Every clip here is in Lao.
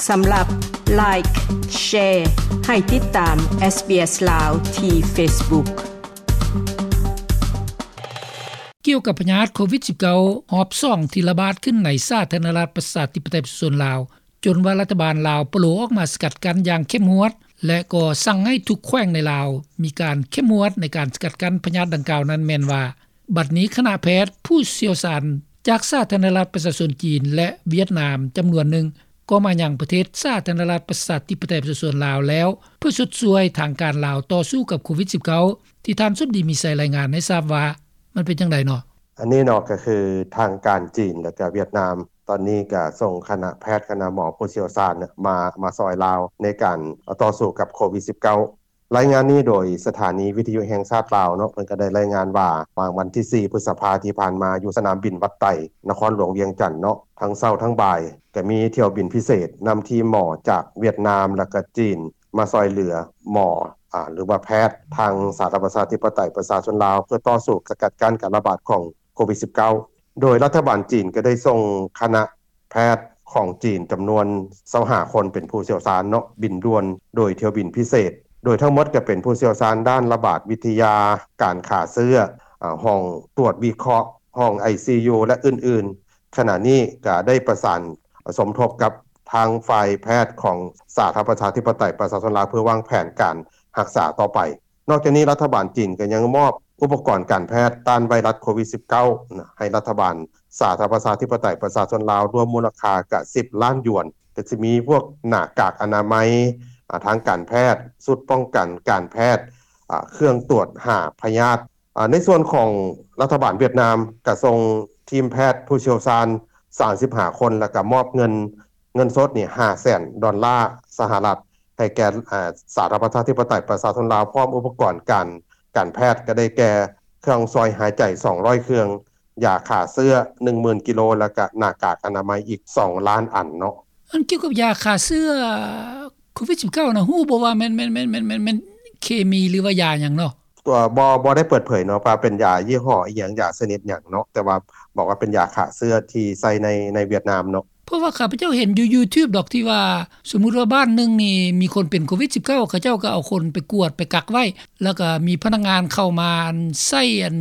ສຳລັບ Like, Share ໃຫ້ຕິດຕາມ SBS ລາວ ທີ່ Facebook. ກ່ຽວກັບພະຍາດໂຄວິດສິບເກົ້າ ຮອບສອງ ທີ່ລະບາດຂຶ້ນໃນສາທາລະນະລັດ ປະຊາທິປະໄຕ ປະຊາຊົນລາວ ຈົນວ່າລັດຖະບານລາວປະໂລອອກມາສະກັດກັ້ນຢ່າງເຂັ້ມງວດ ແລະ ກໍສັ່ງໃຫ້ທຸກແຂວງໃນລາວມີການເຂັ້ມງວດໃນການສະກັດກັ້ນພະຍາດດັ່ງກ່າວນັ້ນ ແມ່ນວ່າ ບັດນີ້ຄະນະແພດຜູ້ຊ່ຽວຊານຈາກສາທາລະນະລັດປະຊາຊົນຈີນ ແລະ ຫວຽດນາມຈຳນວນໜຶ່ງ ກໍມາຍັງປະເທດສາທາລະນະລັດປະຊາທິປະໄຕປະຊາຊົນລາວແລ້ວ ເພື່ອຊົດຊ່ວຍທາງການລາວຕໍ່ສູ້ກັບໂຄວິດສິບເກົ້າ ທີ່ທ່ານສົມດີ ມີໄຊ ລາຍງານໃຫ້ຊາບວ່າ ມັນເປັນຈັ່ງໃດເນາະ? ອັນນີ້ເນາະ ກໍຄືທາງການຈີນ ແລະ ກະຫວຽດນາມ ຕອນນີ້ກະສົ່ງຄະນະແພດ ຄະນະໝໍຜູ້ຊ່ຽວຊານມາ ມາຊ່ອຍລາວໃນການຕໍ່ສູ້ກັບໂຄວິດສິບເກົ້າ. ລາຍງານນີ້ໂດຍສະຖານີວິທະຍຸແຫ່ງຊາດລາວເນາະ ເພິ່ນກໍໄດ້ລາຍງານວ່າ ຫວ່າງວັນທີສີ່ ພຶດສະພາທີ່ຜ່ານມາ ຢູ່ສະໜາມບິນວັດໄຕ ນະຄອນຫຼວງວຽງຈັນເນາະ ທັງເຊົ້າທັງບ່າຍ ກໍມີຖ້ຽວບິນພິເສດນຳທີມໝໍຈາກຫວຽດນາມ ແລະ ກະຈີນ ມາຊ່ອຍເຫຼືອໝໍ ອາ ຫຼືວ່າແພດທາງສາທາລະນະລັດປະຊາທິປະໄຕປະຊາຊົນລາວ ເພື່ອຕໍ່ສູ້ສະກັດກັ້ນການລະບາດຂອງໂຄວິດສິບເກົ້າ ໂດຍລັດຖະບານຈີນກໍໄດ້ສົ່ງຄະນະແພດຂອງຈີນຈຳນວນຊາວຫ້າຄົນ ເປັນຜູ້ຊ່ຽວຊານເນາະ ບິນດ່ວນໂດຍຖ້ຽວບິນພິເສດ ໂດຍທັງໝົດກໍເປັນຜູ້ຊ່ຽວຊານດ້ານລະບາດວິທະຍາ, ການຂ້າເຊື້ອ, ອາ, ຫ້ອງຕວດວິເຄາະ, ຫ້ອງໄອຊີຢູ ແລະ ອື່ນໆ. ຂະນະນີ້ກໍໄດ້ປະສານສົມທົບກັບທາງຝ່າຍແພດຂອງສາທາລະນະລັດປະຊາທິປະໄຕປະຊາຊົນລາວ ເພື່ອວາງແຜນການຮັກສາຕໍ່ໄປ. ນອກຈາກນີ້ ລັດຖະບານຈີນກໍຍັງມອບອຸປະກອນການແພດຕ້ານໄວຣັສໂຄວິດສິບເກົ້າ ໃຫ້ລັດຖະບານສາທາລະນະລັດປະຊາທິປະໄຕປະຊາຊົນລາວ ລວມມູນລະຄ່າກະສິບລ້ານຢວນ ກໍຊິມີພວກໜ້າກາກອະນາໄມ ອາ ທາງການແພດ, ຊຸດປ້ອງກັນການແພດ, ອາ ເຄື່ອງຕວດຫາພະຍາດ. ອາ ໃນສ່ວນຂອງລັດຖະບານຫວຽດນາມ ກໍສົ່ງທີມແພດຜູ້ຊ່ຽວຊານສາມສິບຫ້າຄົນ ແລ້ວກໍມອບເງິນ ເງິນສົດນີ້ຫ້າແສນດອນລາສະຫະລັດ ໃຫ້ແກ່ ອາ ສາທາລະນະລັດປະຊາທິປະໄຕປະຊາຊົນລາວ ພ້ອມອຸປະກອນການ ການແພດ ກໍໄດ້ແກ່ເຄື່ອງຊ່ອຍຫາຍໃຈສອງຮ້ອຍເຄື່ອງ, ຢາຂ້າເຊື້ອໜຶ່ງໝື່ນກິໂລ ແລ້ວກະໜ້າກາກອະນາໄມອີກສອງລ້ານອັນເນາະ. ອັນກ່ຽວກັບຢາຂ້າເຊື້ອໂຄວິດສິບເກົ້ານະ ຮູ້ບໍ່ວ່າແມ່ນ ແມ່ນ ແມ່ນ ແມ່ນ ແມ່ນ ແມ່ນເຄມີ ຫຼືວ່າຢາຫຍັງເນາະ? ຕົວ ບໍ່ ບໍ່ໄດ້ເປີດເຜີຍເນາະ ວ່າເປັນຢາຍີ່ຫໍ້ອີ່ຫຍັງ ຢາຊະນິດຫຍັງເນາະ ແຕ່ວ່າບອກວ່າເປັນຢາຂ້າເຊື້ອທີ່ໃຊ້ໃນ ໃນຫວຽດນາມເນາະ. ເພາະວ່າຂ້າພະເຈົ້າເຫັນຢູ່ຢູທູບດອກ ທີ່ວ່າສົມມຸດວ່າບ້ານໜຶ່ງນີ້ມີຄົນເປັນໂຄວິດສິບເກົ້າ ເຂົາເຈົ້າກໍເອົາຄົນໄປກວດ ໄປກັກໄວ້ ແລ້ວກໍມີພະນັກງານເຂົ້າມາ ອັນ ໃຊ້ ອັນ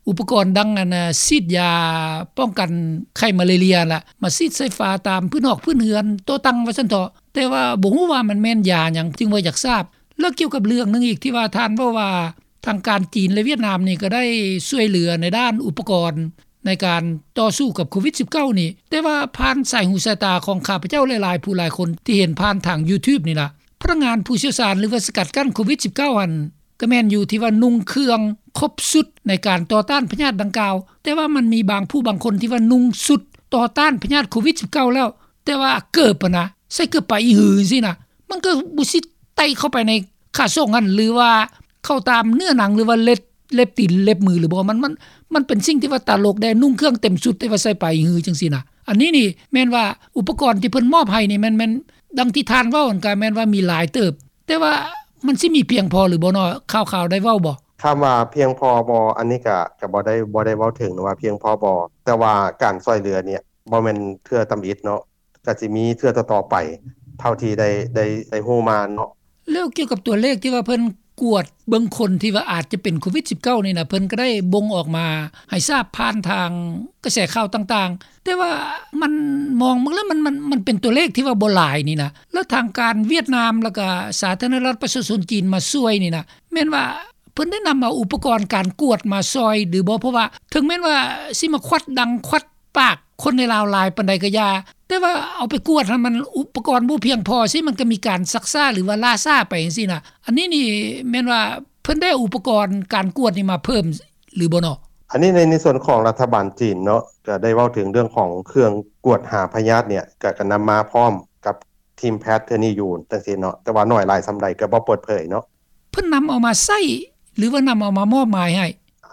ອຸປະກອນດັ່ງ ອັນ ສີດຢາປ້ອງກັນໄຂ້ມາເລເຣຍລະ ມາສີດໃສ່ຝາຕາມພື້ນຫອກພື້ນເຮືອນ ໂຕະຕັ່ງວ່າຊັ້ນເຖາະ. ແຕ່ວ່າບໍ່ຮູ້ວ່າມັນແມ່ນຢາຫຍັງ ຈຶ່ງວ່າຢາກຊາບ. ແລ້ວກ່ຽວກັບເລື່ອງໜຶ່ງອີກ ທີ່ວ່າທ່ານເວົ້າວ່າ ທາງການຈີນ ແລະ ຫວຽດນາມນີ້ກໍໄດ້ຊ່ວຍເຫຼືອໃນດ້ານອຸປະກອນໃນການຕໍ່ສູ້ກັບໂຄວິດສິບເກົ້ານີ້ ແຕ່ວ່າຜ່ານສາຍຫູສາຍຕາຂອງຂ້າພະເຈົ້າຫຼາຍໆຜູ້ຫຼາຍຄົນທີ່ເຫັນຜ່ານທາງຢູທູບນີ້ລະ ພະນັກງານຜູ້ຊ່ຽວຊານ ຫຼືວ່າສະກັດກັ້ນໂຄວິດສິບເກົ້າຫັ້ນ ກໍແມ່ນຢູ່ທີ່ວ່ານຸ່ງເຄື່ອງຄົບຊຸດໃນການຕໍ່ຕ້ານພະຍາດດັ່ງກ່າວ ແຕ່ວ່າມັນມີບາງຜູ້ບາງຄົນທີ່ວ່ານຸ່ງຊຸດຕໍ່ຕ້ານພະຍາດໂຄວິດສິບເກົ້າແລ້ວ ແຕ່ວ່າເກີບຫັ້ນນະ ໃສ່ເກີບປາອີຫືຈັ່ງຊີ້ນະ ມັນກໍບໍ່ຊິໄຕ່ເຂົ້າໄປໃນຂ້າສົງຫັ້ນ ຫຼືວ່າເຂົ້າຕາມເນື້ອໜັງ ຫຼືວ່າເລັບ ເລັບຕີນເລັບມືຫຼືບໍ່? ມັນ ມັນ ມັນເປັນສິ່ງທີ່ວ່າຕະຫຼົກແດ່ ນຸ່ງເຄື່ອງເຕັມຊຸດ ແຕ່ວ່າໃສ່ປາອີຫືຈັ່ງຊີ້ນະ. ອັນນີ້ນີ້ແມ່ນວ່າອຸປະກອນທີ່ເພິ່ນມອບໃຫ້ນີ້ແມ່ນ ແມ່ນດັ່ງທີ່ທ່ານເວົ້າຫັ້ນ ກໍແມ່ນວ່າມີຫຼາຍເຕີບ ແຕ່ວ່າມັນຊິມີພຽງພໍຫຼືບໍ່ເນາະ? ຂ່າວໆໄດ້ເວົ້າບໍ່? ຄຳວ່າພຽງພໍບໍ່ ອັນນີ້ກະ ກະບໍ່ໄດ້ ບໍ່ໄດ້ເວົ້າເຖິງວ່າພຽງພໍບໍ່ ແຕ່ວ່າການຊ່ອຍເຫຼືອນີ້ບໍ່ແມ່ນເທື່ອທຳອິດເນາະ ກະຊິມີເທື່ອຕໍ່ໆໄປ ເທົ່າທີ່ໄດ້ ໄດ້ ໄດ້ຮູ້ມາເນາະ. ແລ້ວກ່ຽວກັບຕົວເລກທີ່ວ່າເພິ່ນກວດເບິ່ງຄົນທີ່ວ່າອາດຈະເປັນໂຄວິດສິບເກົ້ານີ້ນະ ເພິ່ນກໍໄດ້ບົ່ງອອກມາໃຫ້ຊາບຜ່ານທາງກະແສຂ່າວຕ່າງໆ ແຕ່ວ່າມັນ ມອງເບິ່ງແລ້ວມັນ ມັນ ມັນເປັນຕົວເລກທີ່ວ່າບໍ່ຫຼາຍນີ້ນະ ແລ້ວທາງການຫວຽດນາມ ແລ້ວກະສາທາລະນະລັດປະຊາຊົນຈີນມາຊ່ວຍນີ້ນະ ແມ່ນວ່າ ເພິ່ນໄດ້ນຳເອົາອຸປະກອນການກວດມາຊ່ອຍຫຼືບໍ່? ເພາະວ່າເຖິງແມ່ນວ່າຊິມາຄວັດດັງຄວັດປາກຄົນໃນລາວຫຼາຍປານໃດກໍຢ່າ ແຕ່ວ່າເອົາໄປກວດຫັ້ນ ມັນອຸປະກອນບໍ່ພຽງພໍຊີ້ ມັນກໍມີການຊັກຊ້າ ຫຼືວ່າລ່າຊ້າໄປຈັ່ງຊີ້ນະ. ອັນນີ້ນີ້ແມ່ນວ່າເພິ່ນໄດ້ເອົາອຸປະກອນການກວດນີ້ມາເພີ່ມຫຼືບໍ່ເນາະ? ອັນນີ້ໃນ ໃນສ່ວນຂອງລັດຖະບານຈີນເນາະ ກໍໄດ້ເວົ້າເຖິງເລື່ອງຂອງເຄື່ອງກວດຫາພະຍາດນີ້ ກໍ ກໍນຳມາພ້ອມກັບ ທີມແພດເທື່ອນີ້ຢູ່ຈັ່ງຊີ້ເນາະ ແຕ່ວ່າໜ້ອຍຫຼາຍສ່ຳໃດກໍບໍ່ເປີດເຜີຍເນາະ. ເພິ່ນນຳເອົາມາໃຊ້ ຫຼືວ່ານຳເອົາມາມອບໝາຍໃຫ້?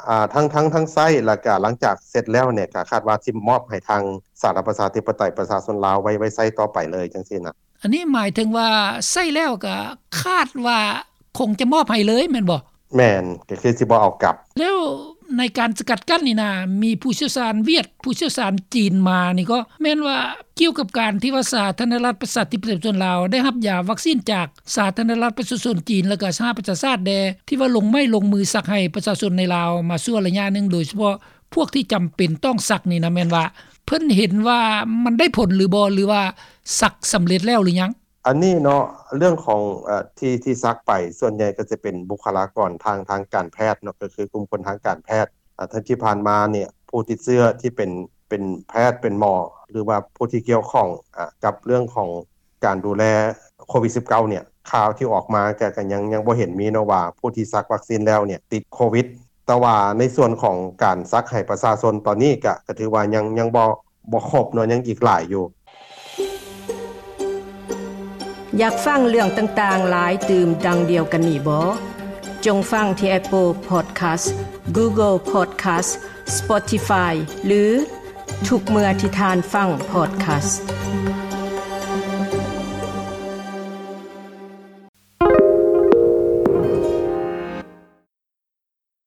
ອາ ທັງ ທັງ ທັງໃຊ້ ແລ້ວກະຫຼັງຈາກເສັດແລ້ວນີ້ ກະຄາດວ່າຊິມອບໃຫ້ທາງສາທາລະນະລັດປະຊາທິປະໄຕປະຊາຊົນລາວໄວ້ ໄວ້ໃຊ້ຕໍ່ໄປເລີຍຈັ່ງຊີ້ນະ. ອັນນີ້ໝາຍເຖິງວ່າໃຊ້ແລ້ວກະຄາດວ່າຄົງຈະມອບໃຫ້ເລີຍແມ່ນບໍ່? ແມ່ນ ກໍຄືຊິບໍ່ເອົາກັບ. ແລ້ວ ໃນການສະກັດກັ້ນນີ້ນະ ມີຜູ້ຊ່ຽວຊານຫວຽດ ຜູ້ຊ່ຽວຊານຈີນມານີ້ກໍແມ່ນວ່າ ກ່ຽວກັບການທີ່ວ່າສາທາລະນະລັດປະຊາທິປະໄຕປະຊາຊົນລາວ ໄດ້ຮັບຢາວັກຊີນຈາກສາທາລະນະລັດປະຊາຊົນຈີນ ແລ້ວກໍສະຫະປະຊາຊາດແດ່ ທີ່ວ່າລົງໄມ້ລົງມືສັກໃຫ້ປະຊາຊົນໃນລາວມາຊົ່ວໄລຍະໜຶ່ງ ໂດຍສະເພາະພວກທີ່ຈຳເປັນຕ້ອງສັກນີ້ນະ ແມ່ນວ່າເພິ່ນເຫັນວ່າມັນໄດ້ຜົນຫຼືບໍ່ ຫຼືວ່າສັກສຳເລັດແລ້ວຫຼືຍັງ? ອັນນີ້ເນາະ ເລື່ອງຂອງ ເອີ ທີ່ ທີ່ສັກໄປ ສ່ວນໃຫຍ່ກໍຈະເປັນບຸກຄະລາກອນທາງ ທາງການແພດເນາະ ກໍຄືກຸ່ມຄົນທາງການແພດ. ອາ ທີ່ຜ່ານມານີ້ ຜູ້ຕິດເຊື້ອທີ່ເປັນ ເປັນແພດ ເປັນໝໍ ຫຼືວ່າຜູ້ທີ່ກ່ຽວຂ້ອງ ອາ ກັບເລື່ອງຂອງການດູແລໂຄວິດສິບເກົ້າ ນີ້ ຂ່າວທີ່ອອກມາກໍ ກໍຍັງ ຍັງບໍ່ເຫັນມີເນາະວ່າ ຜູ້ທີ່ສັກວັກຊີນແລ້ວນີ້ຕິດໂຄວິດ. ແຕ່ວ່າໃນສ່ວນຂອງການສັກໃຫ້ປະຊາຊົນຕອນນີ້ ກໍ ກໍຖືວ່າຍັງ ຍັງບໍ່ ບໍ່ຄົບເນາະ ຍັງອີກຫຼາຍຢູ່. ຢາກຟັງເລື່ອງຕ່າງໆຫຼາຍຕື່ມດັ່ງດຽວກັນນີ້ບໍ່? ຈົ່ງຟັງທີ່ Apple Podcast, Google Podcast, Spotify ຫຼື ທຸກເມື່ອທີ່ທ່ານຟັງ podcast.